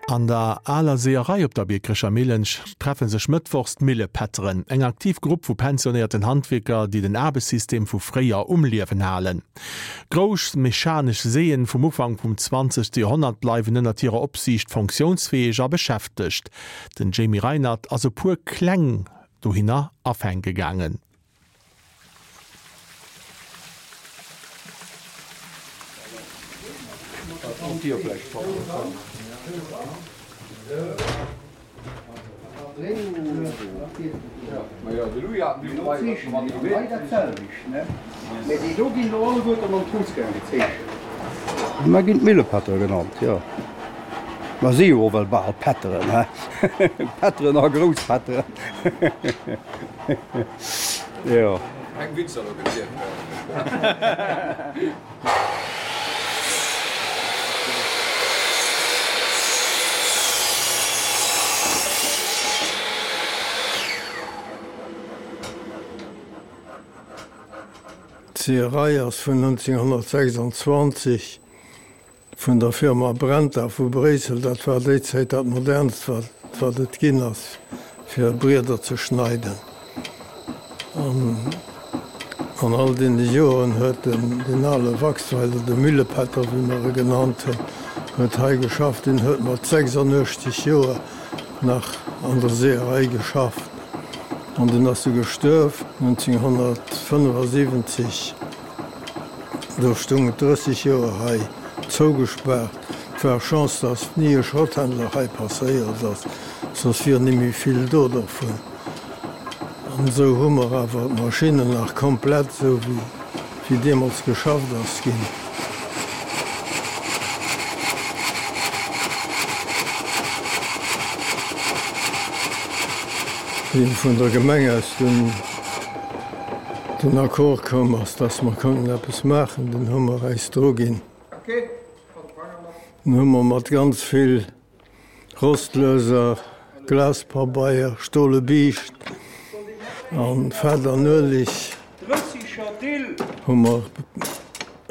An der aler Seeërei op der Biekerecher Millen treffe sech mëttwochs d'Millepätteren, eng aktiv Grupp vu pensionéierten Handwierker, déi den Aarbechtssystem vu fréier um Liewen halen. Grouss mechanesch Seeën vum Ufank vum 20. Joerhonnert bleiwen ënnert hirer Opsiicht fonctiounsfäeg a beschäftegt. Den Jamie Reinert ass e puer Kläng dohinner afänke gaangen. Mer ginn d'Millepätter genannt, jo. Mer si jo och well bal Pätteren, he? Pätteren a Grousspätteren. Jo. Keng Witzer elo gezielt werden. D'Seeërei ass vun 1926 Vun der Firma Brenta vu Bréissel, dat war déi Zäit dat modernst wat wat et ginn ass fir Brieder ze schneiden. An an all deene Joeren huet den deen ale Waxweiler, de Müllepätter wéi mer e genannt hunn, huet hei geschafft. Deen huet mat 86 Joer nach an der Seeërei geschafft an deen ass du gestuerf 1975. Do stung et 30 Joer hei zougespaart. Et war Chance, dass ni e Schrotthändler hei passéiert ass, soss wier nimmi vill do dervun. An esou hu mer awer d'Maschinnen nach komplett, esou wéi deemools geschafft ass ginn. Wéi vun der Gemeng aus dunn den Accord koum ass, dass mer konnten eppes maachen, dunn hu mer äis dru ginn. Dunn hu mer mat ganz vill Rostlöser, Glaspabeier, stole Biischt a Fett an Ueleg hu mer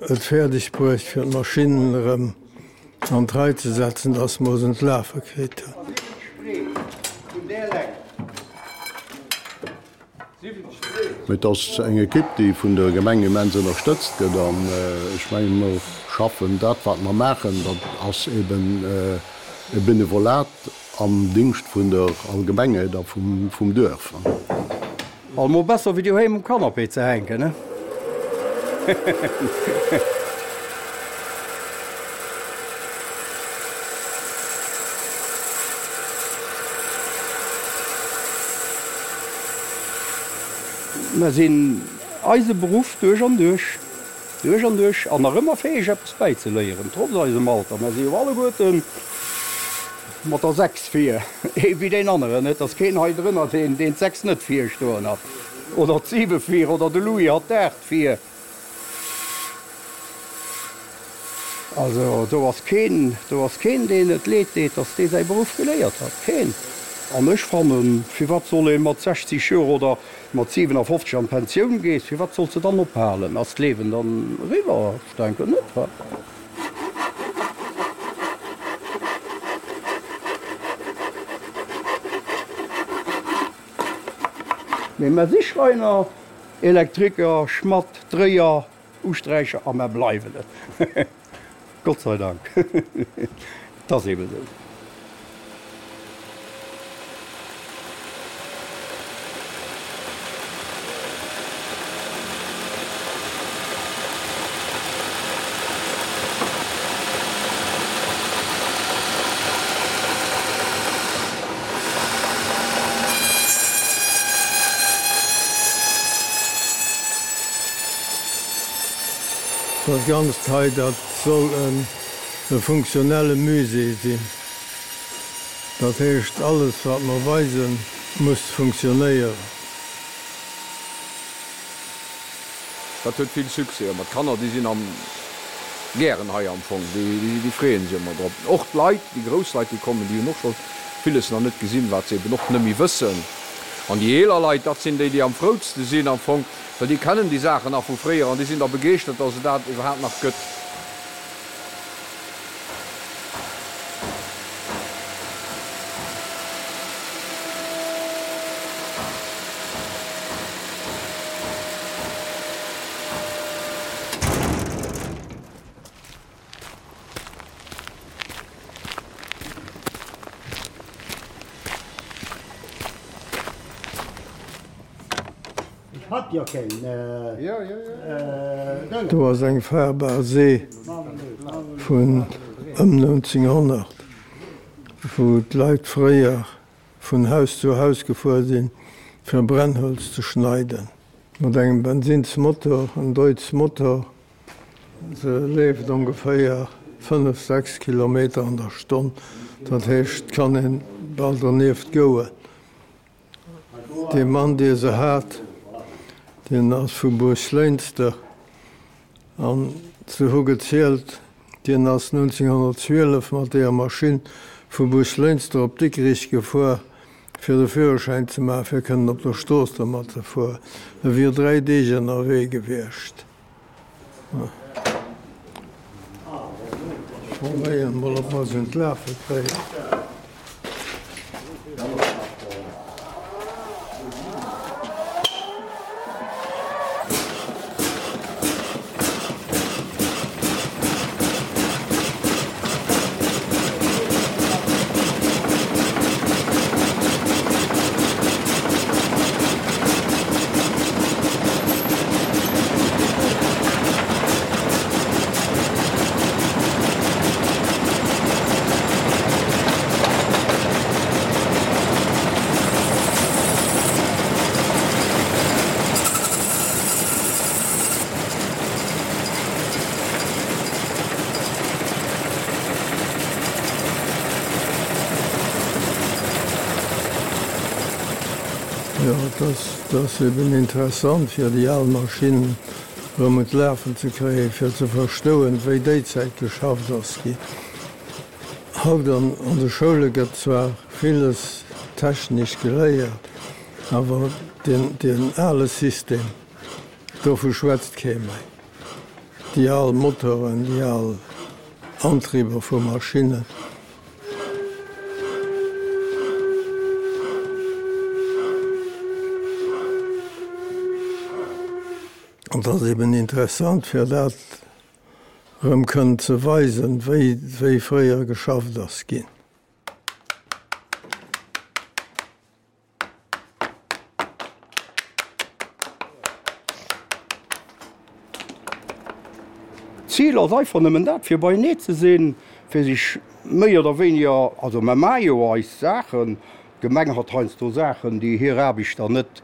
et fäerdeg bruecht, fir d'Maschinnen erëm an d'Rei ze setzen, dass mer se un d'Lafe kritt hunn. Mee et ass eng Ekipp, déi vun der Gemeng immens ënnerstëtzt gëtt. An ech mengen, mer schaffen dat, wat mer maachen, dat ass eben e Benevolat am Dingscht vun der Allgemengheet a vum Duerf. Allemol besser wéi doheem um Canapé ze hänken, ne? Mer sinn eise Beruff duerch an duerch, duerch an duerch an nach ëmmer fäeg eppes bäizeléieren, trotz eisem Alter. Mer si jo alleguerten mat der 6 vir, ee wéi deen aneren. Et ass keen hei drënner, deen d' 6 net vir stoen hat, oder d'Siwe vir, oder de Louis hat d'Aacht vir. Also do ass keen, do ass keen, deen et leed deet, dass dee säi Beruff geléiert hat. Keen! An ech fannen, firwat soll ee mat 60 Joer oder mat 57 an d'Pensioun gees, firwat solls de dann ophalen? Ass d'Liewen dann eriwwer? Ech denken net, wa? Mee mer si Schreiner, Elektriker, Schmadd, Dréier, Usträicher a mer bleiwen et. Gott sei Dank. Et ass eeben esou. Dat Ganzt hei, dat soll e funktionelle Musée sinn. Dat heescht, alles wat mer weisen, muss funktionéieren. Dat huet vill Succès ëmmer. D'Kanner, déi sinn am gären hei am Fong, déi freeën sech ëmmer drop. Och d'Leit, déi grouss Leit, déi kommen, déi hunn och scho villes nach net gesinn, wat se eben och net méi wëssen. An déi eeler Leit, dat sinn déi, déi am froutste sinn am Fong, well déi kennen déi Saachen nach vu fréier an déi sinn da begeeschtert, dass et dat iwwerhaapt nach gëtt. Do ass eng fahrbar See vun ëm 1900, wou d'Leit fréier vun Haus zu Haus gefuer sinn, fir Brennholz ze schneiden. Mat engem Bensinnsmotor, en Deutz Motor. Se leeft ongeféier 5, 6 Kilometer an der Stonn, dat heescht, et kann een bal donieft gouen. Dee Mann, dee se hat, deen ass vu Buerglënster an se hu gezielt, dien ass 1912 mat deeër Maschinn vu Buerglënster op Dikrich gefuer, fir de Führerschäin ze maachen, fir kënnen op der Strooss domat ze fueren. E wier 3 Deeg ënnerwee gewiescht. Probéieren mol ob mer se un d'Lafe kréien. Jo, et ass eben interessant fir déi al Maschinnen erëm un d'Lafen ze kréien, fir ze verstoen, wéi déi Zäit geschafft ass ginn. Haut an de Schoule gëtt zwar villes technesch geléiert, awer deen ale System, dovu schwätzt kee méi. Déi al Motoren, déi al Antrieber vu Maschinnen. An et ass eben interessant, fir dat erëm kënnen ze weisen, wéi fréier geschafft ass ginn. D'Zil ass einfach nëmmen dat, fir beienee ze sinn, fir sech méi oder wéiniger, also mer maache jo eis Saachen, d'Gemeng hat heiansdo Saachen, déi hir Aarbechter net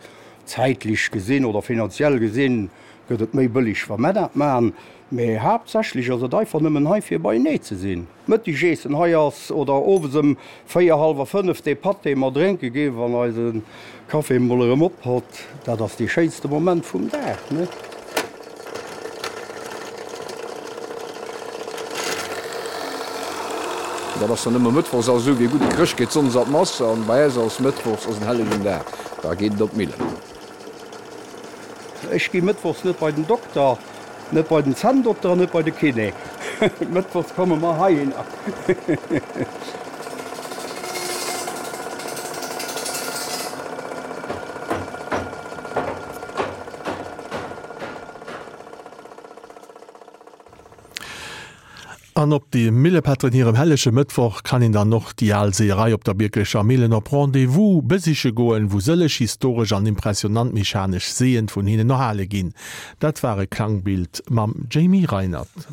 zäitlech gesinn oder finanziell gesinn, gëtt et méi bëlleg, wa mer dat maachen, mä haaptsächlech ass et einfach nëmmen hei, fir beienee ze sinn. Mëttegessen hei ass oder owes ëm 4, hallwer 5 dee Patt dee mer drénke ginn, wann eise Café emol erëm op hott, dat ass dee schéinste Moment vum Dag, ne? Dat ass dann ëmmer mëttwochs, also esou wéi e gudde Chrëscht geet sonndes an d'Mass an bei äis ass mëttwochs ass en hellegen Dag, da geet et op d'Millen. Ech gi mëttwochs net bei den Dokter, net bei den Zänndokter an net bei de Kiné. Mëttwochs komme mer heihinner. An op de Millepätteren hirem hellege Mëttwoch kann een dann och déi al Seeërei op der Bierklecher Millen op Rendez-vous besiche goen, wou sëlleg historesch an impressionant mechanesch Seeën vun hinnen erhale ginn. Dat war e Klangbild mam Jamie Reinert.